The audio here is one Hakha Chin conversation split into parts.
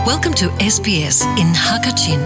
Welcome to SBS in Hakachin.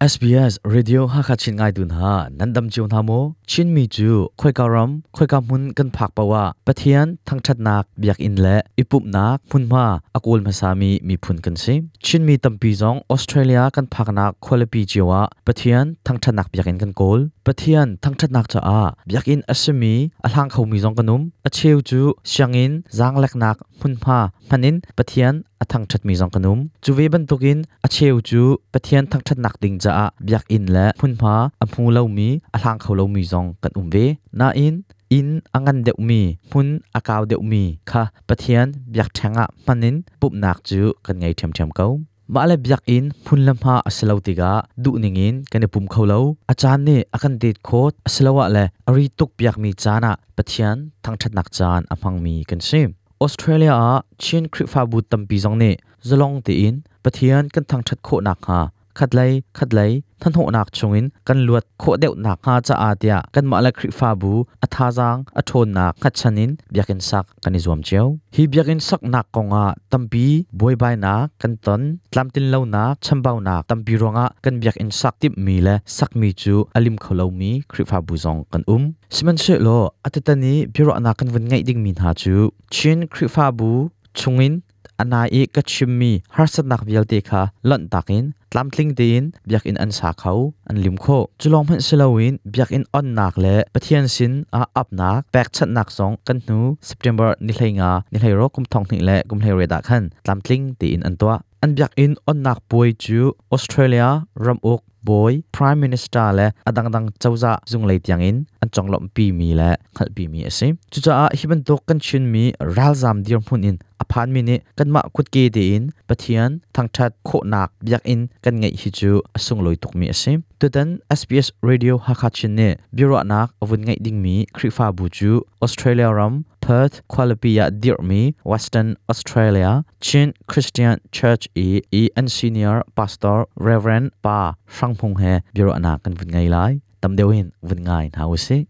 SBS Radio Hakachin ngai dun ha nan dam chiu hna maw Chinmi cu khoika ram khoika hmun kan phak pawa Pathian thangthatnak biakinn le ipumnak hmunhma a kawl hmasami miphun kan si Chinmi tampi zong Australia kan phaknak khualipi cio ah Pathian thangthatnak biakinn kan kawl. Pathian thangthatnak caah biakinn a simi a hlang khomi zong kan um. A cheu cu sianginn zaangleknak hmunhma hmanin Pathian a thangthatmi zong kan um. Cu ve bantukin a cheu cu Pathian thangthatnak ding caah biakinn le hmunhma a hmu lomi, a hlang kho lomi zong kan um ve. Nain inn a ngan deuhmi, hmun a kau deuhmi kha Pathian biakṭheng ah hman in pumhnak cu kan ngei ṭhiamṭhiam ko. Mah le biakinn hmun le hma a si lo tikah duhning in kan i pum kho lo. A caan nih a kan det khawt asiloah le a ri tuk piakmi caan ah Pathian thangṭhatnak caan a hmangmi kan si. Australia ah Chin Khrihfabu tampi zong nih zalong tein Pathian kan thangṭhat khawh nakhnga khatlei khatlei hnahnawhnak chungin kan luat khawh deuh nakhnga caah tiah kanmah le Khrihfabu a thazaang a ṭhawnnak hngatchan in biakinn sak kan i zuam cio. Hi biakinn saknak kongah tampi buaibainak kan ton, tlamtlinlonak, chambaunak tampi ruangah kan biakinn sak timhmi le sakmi cu a lim kho lomi Khrihfabu zong kan um. Sihmanhsehlaw atutan i biaruahnak kan vun ngeih dingmi hna cu Chin Khrihfabu chungin A nai i ka chimmi harsatnak vialte kha lonhtak in tlamtling tein biakinn an sa kho, an lim khawh. Cu lawng hmanh si loin biakinn onnak le Pathian sin ah apnak, pekchanhnak zong kan hnu September ni 15 ni 16 kum 2000 le kum 18 ah khan tlamtling tein an tuah. An biakinn onnak puai cu Australia ramuk bawi, prime minister le a dangdang cozah zunglei tiangin an conglawmhpi mi le hngalhpi mi a si. Cucaah hi bantuk kan Chinmi ralzam dirhmun in a phanmi nih kanmah kutke tein Pathian thangṭhat khawhnak biakinn kan ngeih hi cu a sunglawi tukmi a si. Tutan SBS Radio Hakha Chin nih biaruahnak a vun ngeih dingmi Khrihfabu cu Australia ram Perth khualipi ah dirhmi Western Australia Chin Christian Church i i an senior pastor Reverend Pa Hrang Hmung he biaruahnak kan vun ngei lai. Tam deuh in vun ngai hna usih.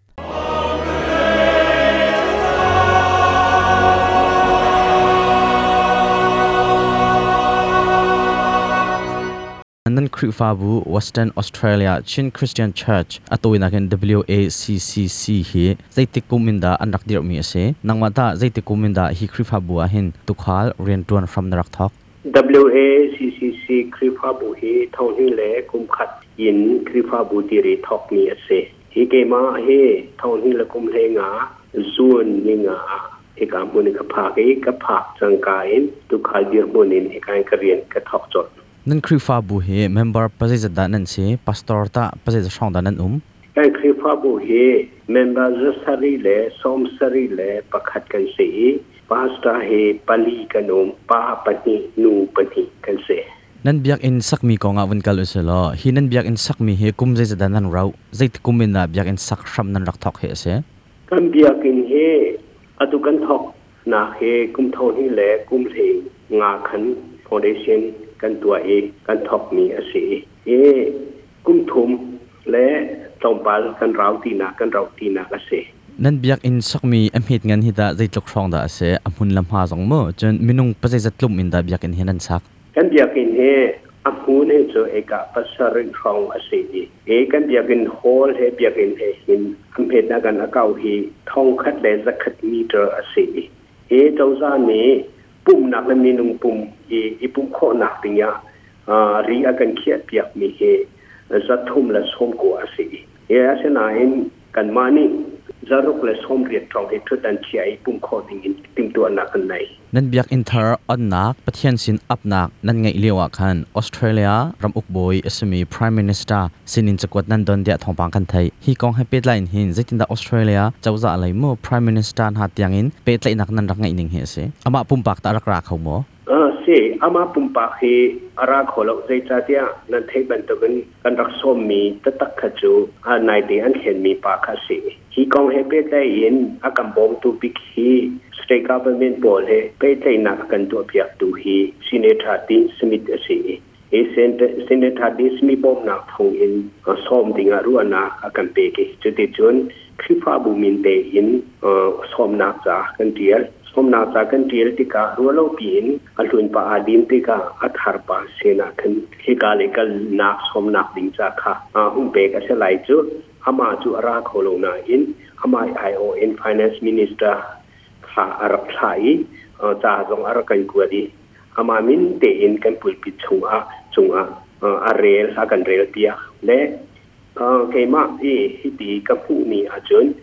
Nan Khrihfabu Western Australia Chin Christian Church a tawinak in WACCC hi zeitik kum in dah an rak dirhmi a si? Nangmah tah zeitik kum in dah hi Khrihfabu ah hin tuukhal rianṭuan hram na rak thawk? WACCC Khrihfabu hi thonghnih le kum khat in Khrihfabu diri thawkmi a si. Hi keimah hi thonghnih le kum 15 June ni nga ah hika hmun in ka phak i ka phak cangka in tuukhal dirhmun in hika in ka rian ka thawk colh. Nan Khrihfabu hi member pazeizat dah nan si? Pastor tah pazeizat hrawng dah nan um? Kan Khrihfabu hi member 7 le 71 kan si i pastor hi pali kan um, pa pahnih, nu pahnih kan si. Nan biakinn sakmi kong ah vun kal usih law, hi nan biakinn sakmi hi kum zeizat dah nan rauh? Zeitik kum in dah biakinn sak hram nan rak thawk hi a si? Kan biakinn hi atu kan thawk nak hi kum 20 le kum 15 khan foundation kan tuah i kan thawkmi a si i kum thum le tlawmpal kan rau tinak kan rauh tinak a si. Nan biakinn sakmi a hmet ngan hi tah zeitluk hrawng dah a si? A hmun le hma zong maw? Cun minung pazeizat tlum in dah biakinn hi nan sak? Kan biakinn hi a hmun hi cu eka pasarih hrawng a si i hi kan biakinn hall he biakinn he hin a hmetnak an a kau hi 1100 meter a si i hi cozah nih pumhnak le minung pum i i pumh khawhnak dingah ri a kan khiahpiakmi hi 390 a si i Hi asinain kanmah nih 680 hrawng hi ṭhutdan chia i pumh khawh dingin timhtuahnak kan nei. Nan biakinn thar onnak Pathian sin apnak nan ngeih lio ah khan Australia ramuk bawi a simi Prime Minister sinin cakuat nan don tiah thawngpang kan theih. Hi kong he pehtlai in hin zeitindah Australia cozah lei mu Prime Minister hna tiangin pehtlaihnak nan rak ngeih ning hi a si? Amah pumpak tah a rak ra kho maw? Si, amah pumpak hi a ra kho lo. Zeicahtiah nan theih bantukin kan rak sawmmi taktak kha cu naite an thlenmi pa kha a si. Hi kong he pehtlaih in a kan bawmtu bik hi state government pawl he pehtlaihnak a kan tuahpiaktu hi Senator Dean Smith a si. Hi Senator Dean Smith bawmhnak thawngin sawm dingah ruahnak a kan pek i cuticun Khrihfabu min tein sawmnak ca kan ṭial. Sawmnak ca kan ṭial tikah ruahlopi in a hlun pa aa din tikah a thar pa sinah khan hika lei kalnak sawmnak ding ca kha hung pek a si lai cu. Amah cu a ra kho lo nain amah aiawh in Finance Minister kha a rak thlah i ca zong a rak kan kuat i amah min tein kan pulpit chungah cungah a rel a kan rel piak le keimah i hiti ka hmuhmi ahcun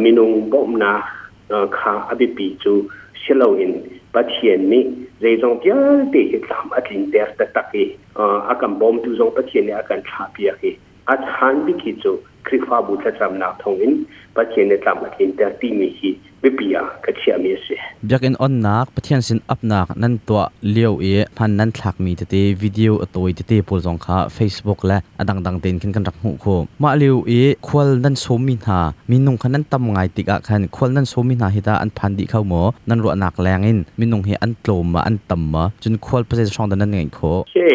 minung bawmhnak kha a biapi cu si loin Pathian nih zeizong vialte hi tlam a tlinter taktak i a kan bawmtu zong Pathian nih a kan thlahpiak i a chan bik hi cu Khrihfabu thlacamnak thawngin Pathian nih tlam a tlinter timi hi biapi ah ka chiahmi a si. Biakinn onnak, Pathian sin apnak nan tuah lio i hman nan thlakmi tete video a tawi tete pawl zong kha Facebook le a dangdang tein khin kan rak hmuh khawh. Mah lio i khual nan sawmmi hna minung kha nan tam ngai tikah khan khual nan sawmmi hna hi tah an phan dih kho maw? Nan ruahnak leng in minung hi an tlawm ma, an tam ma? Cun khual pazei hrawng dah nan ngeih khawh? Si,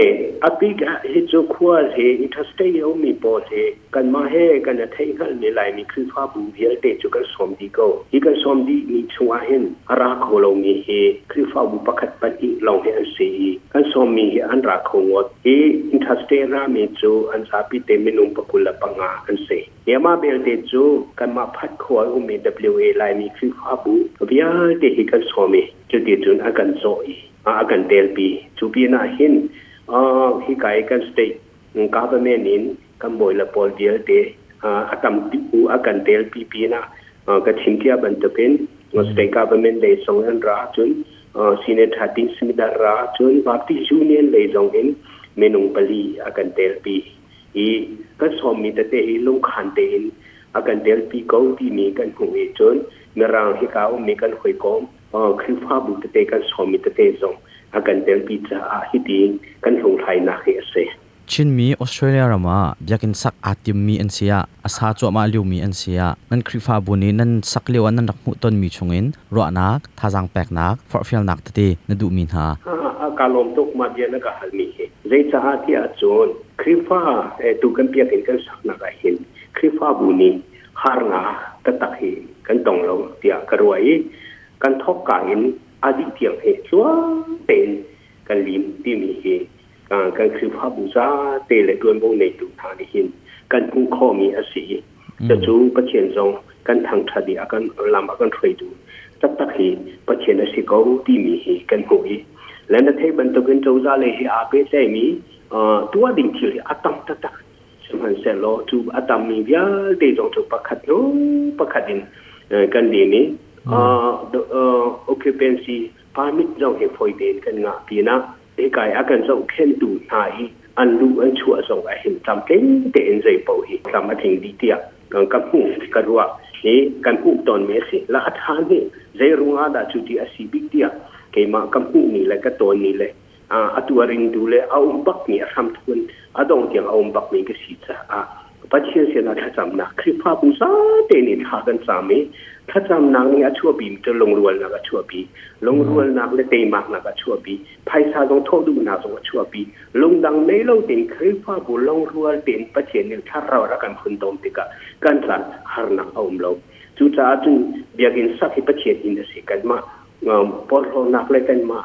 a bik ah hi cu khual hi interstate a ummi pawl hi Kanmah he kan i theihhngalhmi Laimi Khrihfabu vialte cu kan sawm dih ko. Hi kan sawm dihmi chungah hin a ra kho lomi hi Khrihfabu pakhat pahnih lawng hi an si i kan sawmmi hi an ra kho ngawt. Hi interstate rami cu an zapite minung 25 an si. Myanmar belte cu kanmah phat khua i ummi WA Laimi Khrihfabu vialte hi kan sawm i cuticun a kan cawh i a kan telpi. Cu pinah hin hika i kan state government in kan bawi le pawl vialte a tam u a kan telpi pinah ka chimcia bantukin state government lei zong an ra cun Senator Ding Smith ra cun Baptist Union lei zong in minung pali a kan telpi i kan sawmmi tete hi lungkhan tein a kan telpi ko timi kan hmuh i cun mirang hika ummi kan hawikom Khrihfabu tete kan sawmmi tete zong a kan telpi caah hiti kan hlunghlainak hi a si. Chinmi Australia ram ah biakinn sak aa timmi an si ah, a sa cuahmah liomi an si ah, nan Khrihfabu nih nan sak lio ah nan rak hmuh tonmi chungin ruahnak, thazaang peknak, forhfialnak tete na duhmi hna. Ka lawm tuk mah bia na ka halmi hi. Zeicaah tiah cun Khrihfa tu kan biakinn kan saknak ah hin Khrihfabu nih harnak taktak hi kan tong lo tiah ka ruah i kan thawkka in a dih tiang hi tluang tein kan lim timi hi kan Khrihfabu zate le ṭuanvo neitu hna nih hin kan hmuh khawhmi a si i cucu Pathian zong kan thangṭhat i a kan lam a kan hruaitu taktak hi Pathian a si ko timi hi kan hmuh i le na theih bantukin cozah lei he aa pehtlaimi tuah ding thil hi a tam taktak. Sihmanhsehlaw cu a tammi vialte zong cu pakhat hnu pakhat in kan lim i occupancy permit zong hi fawi tein kan ngah pinah hika i a kan zohkhenhtu hna i an luh an chuah zong ah hin tlamtling tein zei paoh hi tlam a tling dih tiah ka hmuh ka ruah hi kan hmuh tawnmi a si. La a ṭha nih zei ruangah dah cu ti a si bik tiah keimah ka hmuhmi le ka tawnmi le a tuaringtu le a um bakmi a hramthun a dong tiang a um bakmi ka si caah Pathian sinah thlacamnak Khrihfabu zate nih thla kan cam i thlacamnak nih a chuahpi mi cu lungrualnak a chuahpi, lungrualnak le teimaknak a chuahpi, phaisa zong thawh duhnak zong a chuahpi. Lungdang nei lo tein Khrihfabu lungrual tein Pathian nih thlarau rak kan funtom tikah kan caan harnak a um lo. Cucaah cun biakinn sak hi Pathian inn a si. Kanmah porhlawtnak le kanmah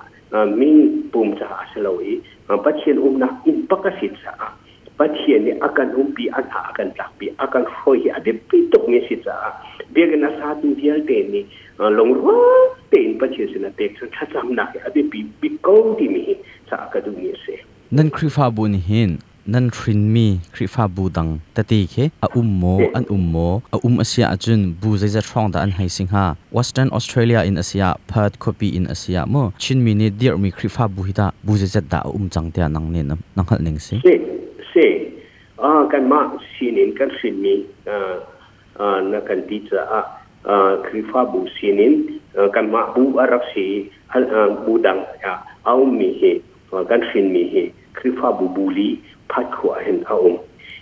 mi pum caah a si lo i Pathian umnak inn bak a si caah Pathian nih a kan umpi, a hna a kan tlakpi, a kan hruai hi a biapi tukmi a si caah biakinn a satu vialte nih lungrual tein Pathian sinah pek cu thlacamnak hi a biapi bik ko timi hi caah ka duhmi a si. Nan Khrihfabu nih hin nan hrinmi Khrihfabu dang tete khi a um maw, an um maw? A um a si ahcun bu zeizat hrawng dah an hei si hnga? Western Australia in a si ah, Perth khuapi in a si ah maw Chinmi nih dirhmi Khrihfabu hi tah bu zeizat dah a um cang tiah nang nih na hngalh ning si? Si, si. Kanmah sinin kan hrinmi na kan ti caah Khrihfabu sinin kanmah bu a rak si i bu dang a ummi hi kan hrinmi hi Khrihfabu bu li phat khua hin a um.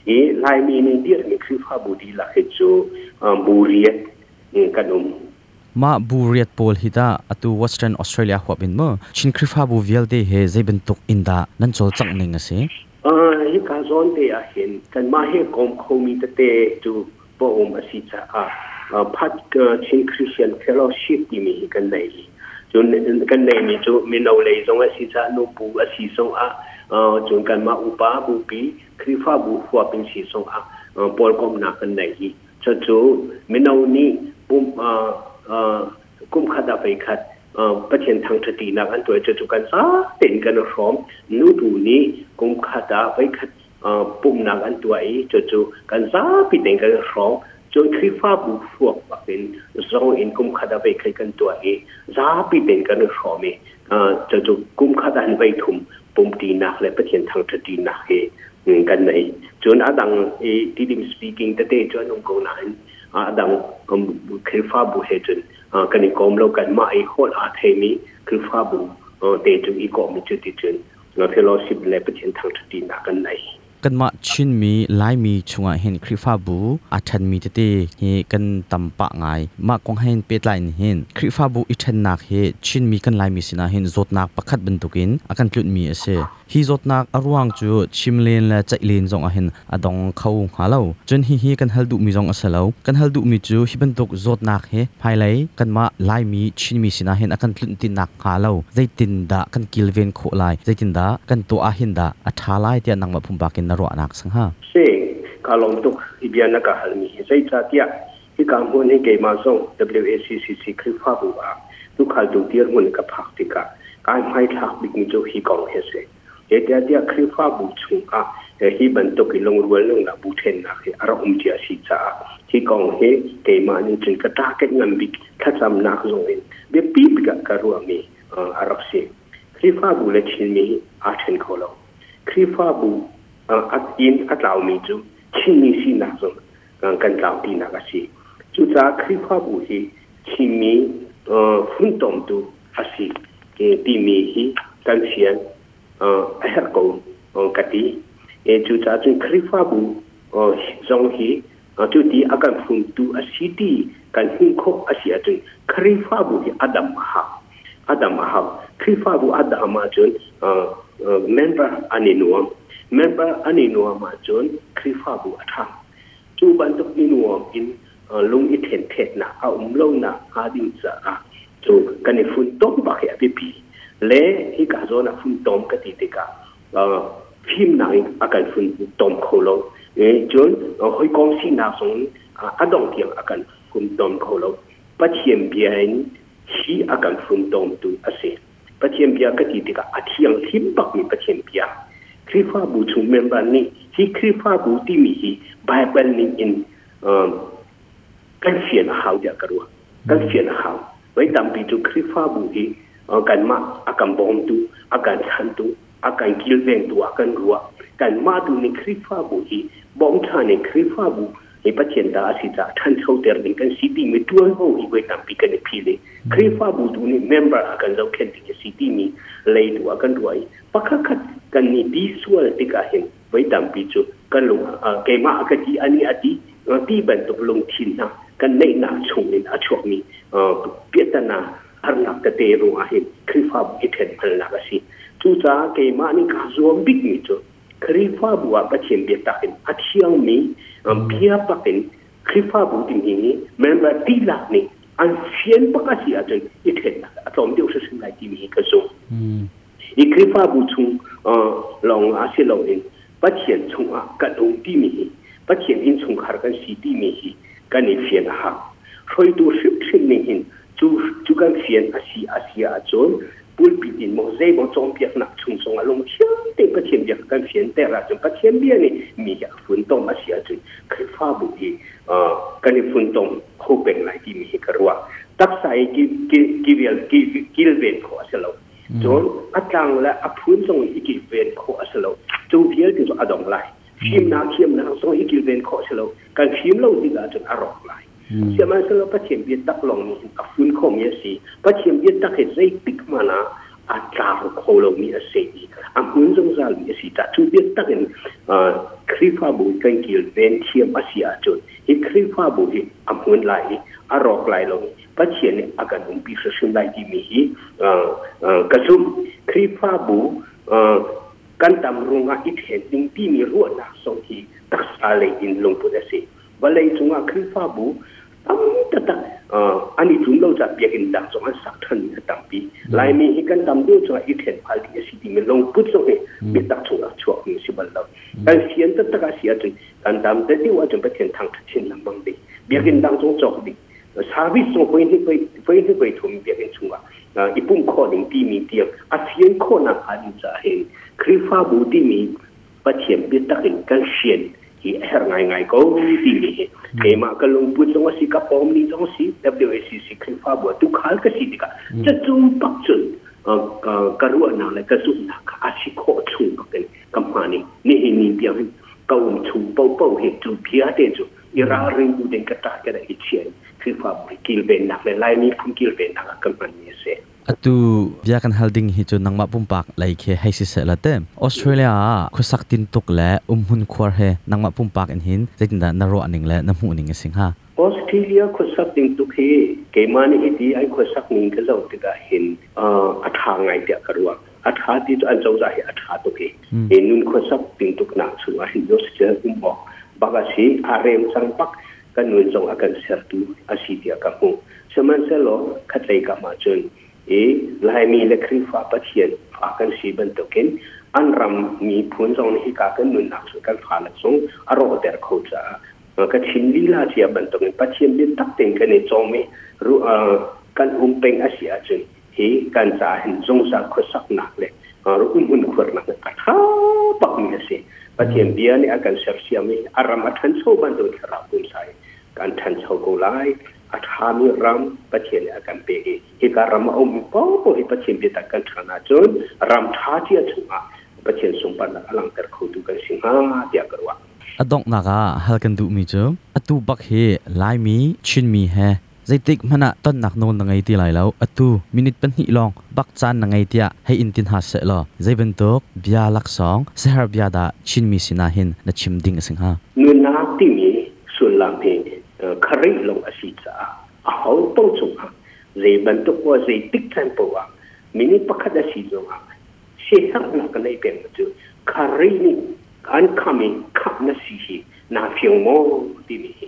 I Laimi nih dirhmi Khrihfabu dihlak hi cu bu riat kan um. Mah bu riat pawl hi tah atu Western Australia huap in maw Chin Khrihfabu vialte he zei bantuk in dah nan cawlcangh ning a si? Hika zawn te ah hin kanmah he kawm khomi tete cu bawm a si caah Phat Chin Christian Fellowship timi hi kan nei i cun kan neimi cu mino lei zong a si caah nubu a si zongah cun kanmah upa bupi Khrihfabu huap in si zongah pawlkomhnak kan nei i cucu mino nih pum kum khat ah voikhat Pathian thangṭhattinak an tuah cucu kan zatein kan i hrawm. Nubu nih kum khat ah voikhat pumhnak an tuah i cucu kan zapi tein kan i hrawm. Cun Khrihfabu huap bakin zong in kum khat ah voikhat kan tuah i zapi tein kan i hrawm i cucu kum khat ah hin voithum pumṭinak le Pathian thangṭhatṭinak hi kan nei. Cun a dang i Tidim speaking tete cu an um ko nain a dang Khrihfabu he cun kan i kom lo. Kanmah i holh aa theimi Khrihfabu te cu i kawhmi cu ti cun fellowship le Pathian thangṭhatṭinak kan nei. Kanmah Chinmi, Laimi chungah hin Khrihfabu aa ṭhenmi tete hi kan tam pah ngai. Mah kong he hin pehtlai in hin Khrihfabu i ṭhennak hi Chinmi kan Laimi sinah hin zawtnak pakhat bantukin a kan tlunhmi a si. Hi zawtnak a ruang cu chim len le ceih len zong ah hin a dong kho hnga lo. Cun hihi kan hal duhmi zong a si lo. Kan hal duhmi cu hi bantuk zawtnak hi hmailei kanmah Laimi Chinmi sinah hin a kan tlunh ti nak hnga lo. Zeitindah kan kilven khawh lai? Zeitindah kan tuah ah hin dah a ṭha lai tiah nangmah pumpak in na ruahnak si hnga? Si, kaa lawm tuk hi bia na ka halmi hi. Zeicahtiah hika hmun hi keimah zong WACCC Khrihfabu ah tukhaltu dirhmun ka phak tikah kai hmaithlak bikmi cu hi kong hi a si. Zeicahtiah Khrihfabu chungah hi bantuk i lungrual lonak bu ṭhennak hi a rak um cia si caah hi kong hi keimah nih cun ka target ngan bik thlacamnak zong in biapi bik ah ka ruahmi a rak si. Khrihfabu le Chinmi hi aa ṭhen kho lo. Khrihfabu in a tlaumi cu Chinmi sinak zong kan tlau tinak a si. Cucaah Khrihfabu hi Chinmi funtomtu a si timi hi kan fian a herh ko ka ti. Cucaah cun Khrihfabu zong hi cuti a kan funtu a si ti kan hmuh khawh a si ahcun Khrihfabu hi a dam a hau. A dam a hau. Khrihfabu a dam ahcun member an i nuam. Member an i nuam ahcun Khrihfabu a ṭhang. Cu bantuk i nuam in lung i ṭhenṭhetnak a um lonak hnga ding caah cu kan i funtom bak hi a biapi. Le hika zawn ah funtom ka ti tikah fimnak in a kan funtom kho lo. Cun hawikom sinak zong a dong tiang a kan funtom kho lo. Pathian bia in hi a kan funtomtu a si. Pathian bia ka ti tikah a thianghlim bakmi Pathian bia. Khrihfabu chung member nih hi Khrihfabu timi hi Bible ning in kan fian a hau tiah ka ruah. Kan fian a hau. Voi tampi cu Khrihfabu hi kanmah a kan bawmtu, a kan chantu, a kan kilvengtu ah kan ruah. Kanmah tu nih Khrihfabu hi bawmchan in Khrihfabu hi Pathian ta a si caah ṭhanchoter ding kan si timi ṭuanvo hi voi tampi kan i phil i Khrihfabu tu nih member a kan zohkhenh ding a si timi lei tu ah kan ruah i pakhat khat kan nih ti sual tikah hin voi tampi cu kan lung keimah a ka ti ani a ti ti bantuk lungthin hna kan neihnak chung in a chuakmi piahtana harnak tete ruangah hin Khrihfabu i ṭhen hngalnak a si. Cucaah keimah nih kaa zuam bikmi cu Khrihfabu ah Pathian biatak in a thiangmi bia bak in Khrihfabu timi hi member dihlak nih an fian bak a si ahcun i ṭhennak a tlawm deuh hrimhrim lai timi hi ka zumh. Hi Khrihfabu chung lawng ah si loin Pathian chungah kan um timi hi Pathian innchungkhar kan si timi hi kan i fian a hau. Hruaitu hrimhrim nih hin cu cu kan fian a si a si ahcun pulpit in maw zeimaw cawnpiaknak chung zongah lungthiang tein Pathian bia kan fianter ahcun Pathian bia nih mi hi a funtom a si ahcun Khrihfabu hi kan i funtom kho peng lai timi hi ka ruah. Taksa i kilven khawh a si lo. Cun a tlang le a phun zong i kilven khawh a si lo. Cu vialte cu a dong lai. Fimnak thiamnak zong i kilven khawh a si lo. Kan fim lo tikah cun a rawk lai. Sihmanhsehlaw Pathian biatak lawng nih hin a fun khomi a si. Pathian biatak hi zeitik hmanh ah a tlar kho lomi a si i a hmun zungzalmi a si caah cu biatak in Khrihfabu kan kilven thiam a si ahcun hi Khrihfabu hi a hmun lai i a rawk lai lo i Pathian nih a kan umpi hrimhrim lai timi hi ka zumh. Khrihfabu kan tam ruangah i ṭhen ding timi ruahnak zong hi taksa lei in lungput a si. Vawlei cungah Khrihfabu tampi Taktak an i tlum lo caah biakinn dang zong an sak ṭhan mi a tampi. Laimi hi kan tam deuh caah i ṭhen phal ding a si timi lungput zong hi biatak chungah chuak mi a si bal lo. Kan sian taktak a si ahcun kan tam deuh ahcun Pathian thangṭhat chin lengmang ding. Biakinn dang zong cawk ding. Service zong voi hnih voi hnih voi thum biakinn chungah i pumh khawh ding timi tiang a fian khawhnak hnga ding caah hin Khrihfabu timi Pathian biatak in kan sian hi a herh ngaingai ko timi hi keimah ka lungput zong a si ka pawm ni zong a si WACC Khrihfabu ah tukhal ka si tikah cacung pak cun ka ruahnak le ka zumhnak kha a si khawh chung bak in ka hmaan i nihin ni tiang hin ka um chung paohpaoh hi cu bia te cu i ralring bu ding ka ṭah ka i chia in Khrihfabu kilvennak le Laimi phun kilvennak ah ka hmanmi a si. Atu bia kan hal ding hi cu nangmah pumpak lei khi hei si seh la te. Australia ah khuasak tintuk le umhmun khuar he nangmah pumpak in hin zeitindah na ruah ning le na hmuh ning a si hnga? Australia khuasak ding tuk hi keimah nih hiti an khuasak ning ka zoh tikah hin a ṭha ngai tiah ka ruah. A ṭha ti cu an cozah hi a ṭha tuk i hi nun khuasak ding tuk nak chungah hin Australia um awk bak a si. Aa rem cang bak kan nun zong a kan sertu a si tiah ka hmuh. Sihmanhsehlaw khatlei kam ahcun i Laimi le Khrihfa Pathian fa kan si bantukin an ram miphun zong nih hika kan nunnak cu kan fale zong a rawhter kho caah ka chim lila cia bantukin Pathian biatak tein kan i cawm i kan um peng a si ahcun hi kan caah hin zungzal khuasaknak le umhmun khuarnak a ṭha bakmi a si. Pathian bia nih a kan sersiam i a ram a ṭhancho bantuk thlarau pumsa in kan ṭhancho ko lai. A ṭhami ram Pathian nih a kan pek i hika ram a ummi paohpaoh hi Pathian biatak kan ṭhan ahcun ram ṭha cia chungah Pathian sunparnak a langhter khotu kan si hnga tiah ka ruah. A donghnak ah hal kan duhmi cu atu bak hi Laimi, Chinmi he Zeitik hmanh ah tonnak nawl na ngei ti lai lo. Atu minute pahnih lawng bak caan na ngei tiah hei in ti hna seh law zei bantuk bia laksawng siaherh bia dah Chinmi sinah hin na chim ding a si hnga? Nunnak timi sullam hi kharih lawng a si caah aho paoh cungah zei bantuk maw zeitik caan paoh ah minute pakhat a si zongah siaherhnak ka neih peng cu kharih nih an kham i khamh na si hi naa fiang maw timi hi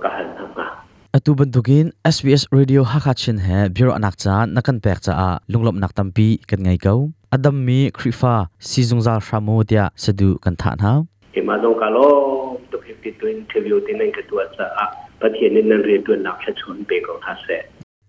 ka hal hna hnga. Atu bantukin SBS Radio Hakha Chin he biaruahnak caan na kan pek caah lunglawmhnak tampi kan ngei ko. A dammi Khrihfa si zungzal hram u tiah sadu kan thah hna. Keimah zong ka lawm tuk hi ti interview te nan ka tuah caah Pathian nih nan riantuannak thluachuah in pe ko hna seh.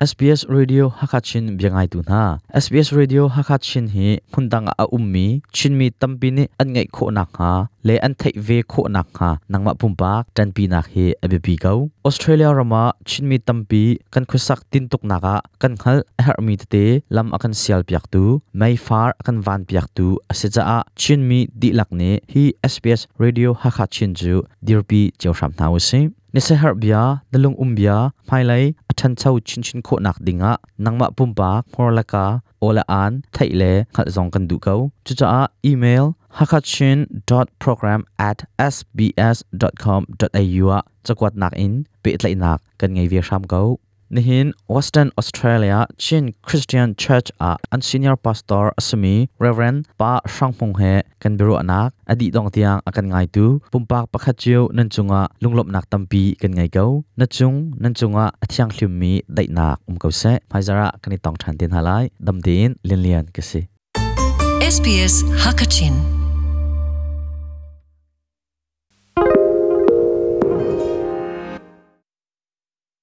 SBS Radio Hakha Chin biangaitu hna. SBS Radio Hakha Chin hi hmundang ah a ummi Chinmi tampi nih an ngaih khawh nakhnga le an theih ve khawh nakhnga nangmah pumpak ṭanpinak hi a biapi ko. Australia ram ah Chinmi tampi kan khuasak tintuknak ah kan hngalh a herhmi tete lam a kan sialpiaktu, meifar a kan vanpiaktu a si caah Chinmi dihlak nih hi SBS Radio Hakha Chin cu dirpi cio hram hna usih. Na siaherh bia, na lungum bia, hmailei a ṭhancho chinchin khawhnak dingah nangmah pumpak hmur le ka, aw le aan, theih le hngalh zong kan duh ko. Cucaah email hakachin.program@sbs.com.au ah cakuatnak in pehtlaihnak kan ngei ve hram ko. Nihin Western Australia Chin Christian Church ah an senior pastor a simi Reverend Pa Hrang Hmung he kan biaruahnak a dih dong tiang a kan ngaitu pumpak pakhat cio nan cungah lunglawmhnak tampi kan ngei ko. Na cung nan cungah a thianghlimmi daihnak um ko seh. Hmaizarh ah kan i tong ṭhan te hna lai. Dam tein Lianlian ka si. SBS Hakachin.